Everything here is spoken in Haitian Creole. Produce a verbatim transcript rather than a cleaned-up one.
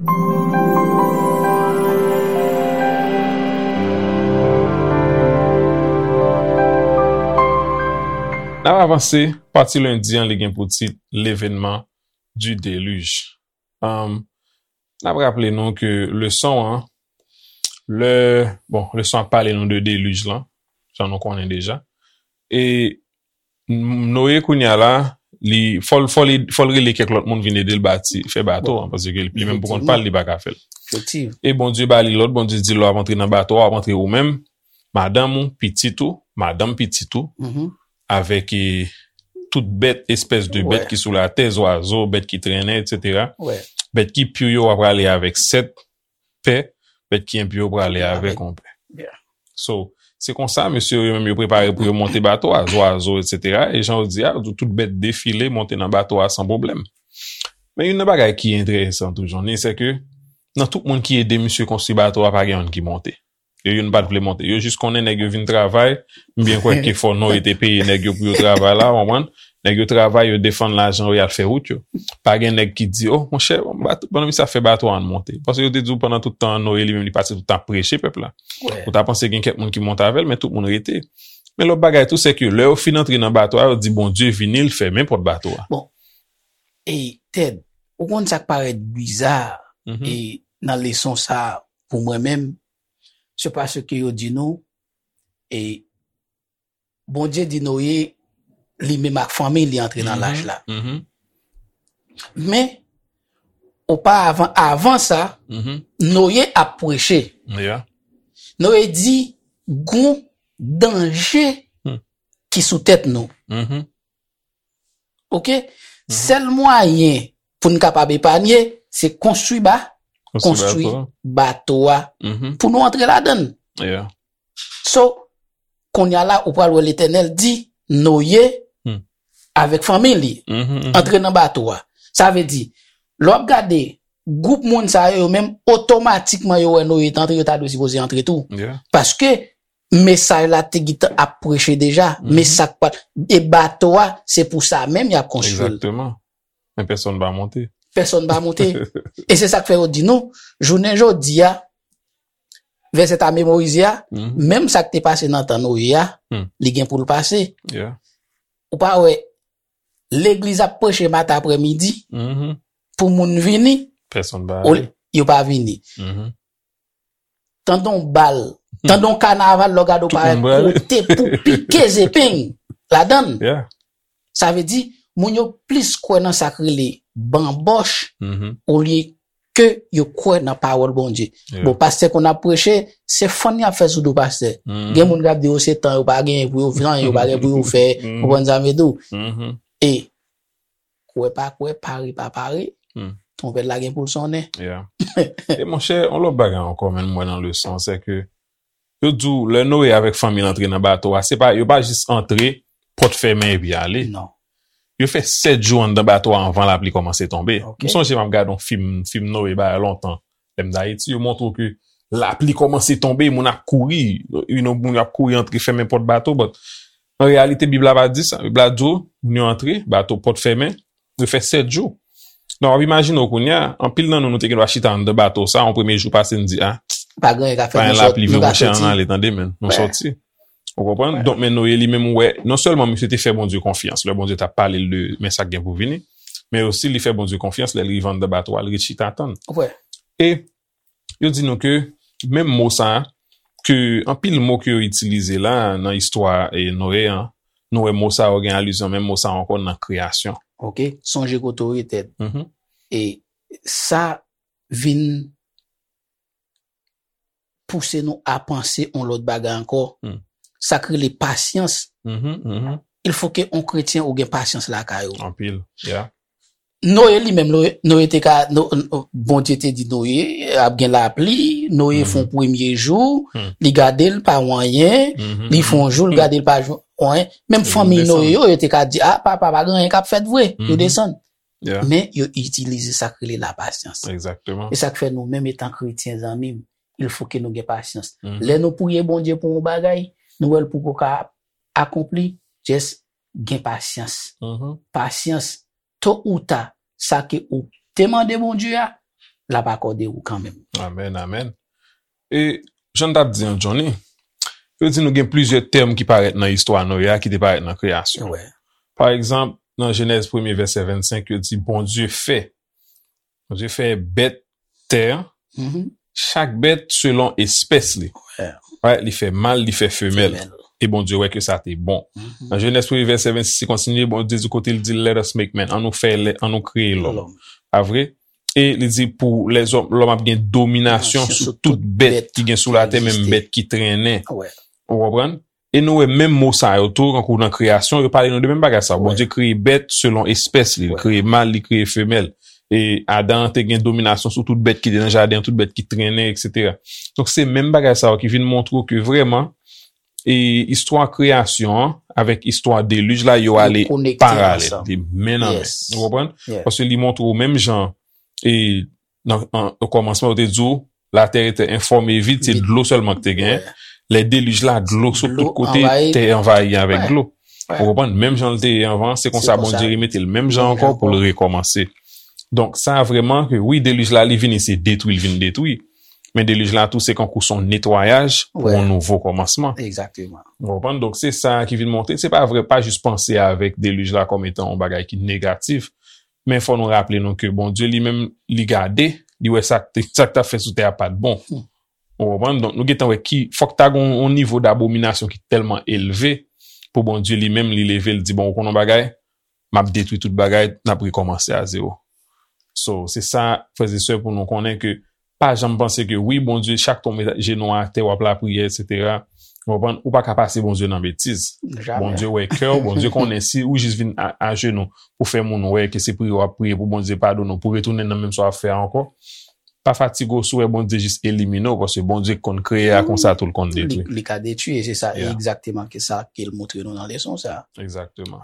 N ap avanse, pati lendi an, li gen pou tit L'événement du déluge. Um, n ap raple nou ke leson an, lè, bon, leson an ap pale nou de delij lan, jan nou konnen deja. E Noye kounye a la, li, fò l, fò li, fò l rele kèk lòt moun vin ede l bati, fè bato an, paske li menm pou kont pa l, li pa ka fè l. E Bondye ba li lòd, Bondye di l, lè w ap antre nan bato a, w ap antre ou menm, madanm ou, pitit ou, madanm pitit ou, avèk e, tout bèt, espès de bèt ki sou latè, zwazo, bèt ki trennen, etsetera. Bèt ki pi yo, w ap prale avèk sèt pè, bèt ki enpi yo prale avèk yon pè. So, se konsa, mesye yo menm yo prepare pou yo monte bato a, zwazo, etsetera. E jan yo di a, tout bèt defile, monte nan bato a san pwoblèm. Men youn nan bagay ki enteresan toujou, ni se ke nan tout moun ki ede misye konstwi bato a, pa gen youn ki monte. Yo youn pa t vle monte. Yo jis konnen nèg yo vin travay. M byen kwè ke fò Noye te peye nèg yo pou yo travay la, w konprann? Nèg yo travay, yo defann lajan yo, y al fè wout yo. Pa gen nèg ki di, "Oh, monchè, bato, pandan misye ap fè bato a, ann monte." Paske yo te di w pandan tout tan an, Noye li menm li pase tout tan ap preche pèp la. Ou ta panse gen kèk moun ki monte avè l, men tout moun rete. Men lòt bagay tou, se ke lè yo fin antre nan bato a, yo di, "Bondye vini, l fèmen pòt bato a." Bon, e Ted, ou konn sa k parèt biza e nan leson sa a pou mwen menm, se paske yo di nou, e Bondye di Noye, li menm ak fanmi li antre nan lach la. Men, oparavan, avan sa, Noye ap preche. Noye di, gon danje ki sou tèt nou. Oke? Sèl mwayen pou n kapab epanye, se konstwi ba, konstwi bato a pou nou antre ladan l. So, kounye a la, ou pral wè Letènèl di Noye avèk fanmi li antre nan bato a. Sa vle di, lè w ap gade gwoup moun sa yo, yo menm otomatikman yo wè Noye t antre, yo ta dwe sipoze antre tou. Paske mesaj la te gentan ap preche deja, men sa k pa, e bato a, se pou sa menm y ap konstwi l. Men pèsonn pa monte. Pèsonn pa monte. E se sa k fè yo di nou, jounen jodi a, vèsè ta memorize a, menm sa k te pase nan tan Noye a, li gen pou l pase. Ou pa wè, legliz ap preche maten aprèmidi, pou moun vini, yo pa vini. Tande yon bal, tande yon kanaval, lè w gade w parèt kote pou pike zepeng ladan l. Sa vle di, moun yo plis kwè nan sa k rele banbòch olye ke yo kwè nan pawòl Bondye. Bon, pastè konn ap preche, se fann y ap fè sou do pastè. Gen moun k ap di yo se tan yo pa genyen pou yo fè anyen, yo pa gen pou yo fè, ou konprann sa m vle di w. E kwè pa kwè, pare pa pare, twonpèt la gen pou l sonnen. E monchè, yon lòt bagay ankò, men m wè nan leson an, se ke yo di w, lè Noye avèk fanmi l antre nan bato a, se pa, yo pa jis antre, pòt fèmen epi ale. Non. Yo fè sèt jou anndan bato a anvan lapli kòmanse tonbe. M sonje m ap gade yon fim, fim Noye bagay lontan. Lè m t Ayiti, yo montre w ke lapli kòmanse tonbe, moun ap kouri, you know, moun ap kouri antre fèmen pòt bato, but an reyalite, Bib la pa di sa. Bib la di w, moun yo antre, bato pòt fèmen, yo fè sèt jou. Donk, w ap imajine w kounye a, anpil nan nou, nou te gen dwa chita anndan bato sa, yon premye jou pase, n di, a, pa gen lapli vre, monchè, ann ale, tande, men, nou sòti. Ou konprann? Donk, men Noye li menm, ou wè, non sèlman misye te fè Bondye konfyans, lè Bondye t ap pale l de, men sa k gen pou vini, men osi li fè Bondye konfyans, lè l rive anndan bato a, l ret chita tann. E yo di nou ke menm mo sa a, ke anpil mo ke yo itilize la nan istwa e Noye an, nou wè mo sa yo gen alizyon, menm mo sa a ankò nan kreyasyon. Oke, sonje kote w ye, Ted. E sa vin pouse nou a panse yon lòt bagay ankò. Sa k rele pasyans. Il fo ke yon kretyen ou gen pasyans lakay ou. Anpil, yeah. Noye li menm, Noye te ka, Bondye te di Noye ap gen lapli, Noye fè yon premye jou, li gade l pa yon anyen, li fè yon jou, li gade l pa yon anyen. Menm fanmi Noye yo, yo te ka di, a, papa, pa gen anyen k ap fèt vre, yo desann. Men yo itilize sa k rele lapasyans. E sa k fè nou menm etan kretyen, zanmi m, il fo ke nou gen pasyans. Lè nou priye Bondye pou yon bagay, nou wè l poko ka akonpli, just gen pasyans. Pasyans, to ou ta, sa ke ou te mande Bondye a, l ap akòde ou kanmenm. Amèn, amèn. E jan n t ap di an, Johnny, yo di nou gen plizyè tèm ki parèt nan istwa Noye a ki te parèt nan kreyasyon. Wè. Pa egzanp, nan Jenèz premye vèsè vennsenk, yo di Bondye fè. Bondye fè bèt tè an, Mhm. chak bèt selon espès li. Wè. Right? Li fè mal, li fè femèl. Femèl. E Bondye wè ke sa te bon. Mhm. Nan Jenèz premye vèsè vennsis, li kontinye, Bondye di kote li di, "Let us make man," an nou fè lè, an nou kreye lòm. Lòm. Pa vre? E li di pou lèzòm, lòm ap gen dominasyon Dominasyon sou sou tout tout bèt bèt ki gen sou ki latè, menm egziste. Bèt ki trennen. Wè. Ou konprann? E nou wè menm mo sa yo tou, kankou nan kreyasyon, yo pale nou de menm bagay sa. Wè. Bondye kreye bèt selon espès li. Li Wè. Kreye mal, li kreye femèl. E Adan te gen dominasyon sou tout bèt ki te nan jaden, tout bèt ki trennen, etsetera. Donk se menm bagay sa yo ki vin montre w ke vrèman, e istwa kreyasyon an avèk istwa delij la, yo Yo ale konekte paralèl. ansanm. Li men nan men. Yes. Ou konprann? Yeah. Paske li montre w menm jan, e nan an, o kòmansman, yo te di w, la terre était informe et vide, se Vide. Dlo sèlman ki te gen. Wè. Lè delij la, dlo sou Dlo tout kote, anvayi. Tè anvayi avèk Wè. Dlo. Wè. Ou konprann? Menm jan l te ye anvan, se konsa konsa. Bondye remete l menm jan Menm jan ankò pou l ankò. Rekòmanse. Donk sa vrèman ke wi, delij la li vini, se detwi l vin detwi. Men delij la tou, se kankou se yon netwayaj pou Wè. yon nouvo kòmansman. Egzakteman. Ou konprann? Donk se sa ki vin montre. Se pa vre, pa jis panse avèk delij la kòm etan yon bagay ki negatif. Men fò nou raple nou ke Bondye li menm, li gade, li wè sa k te, sa k t ap fè sou tè a pa t bon. Hmm. Ou konprann? Donk nou gentan wè ki, fòk ta gen yon nivo dabominasyon ki tèlman elve pou Bondye li menm, li leve, li di, "Bon, ou konn yon bagay, m ap detwi tout bagay, n ap rekòmanse a zewo." So, se sa, frè e sè, pou nou konnen ke pa janm panse ke wi, Bondye, chak tan w met jenou atè, w ap lapriyè, etsetera. Ou konprann? Ou pa ka pase Bondye nan betiz. Jamè. Bondye wè kè w, Bondye konnen si ou jis vin a, ajenou pou fè moun wè ke se priye w ap priye pou Bondye padone w, pou retounen nan menm sa w ap fè a ankò. Pa fatige w si w wè Bondye jis elimine w, paske Bondye konn kreye a konsa tou l konn Li, detwi. Li ka detwi, e se sa Yeah. egzakteman ke sa ke l montre nou nan leson sa. Egzakteman.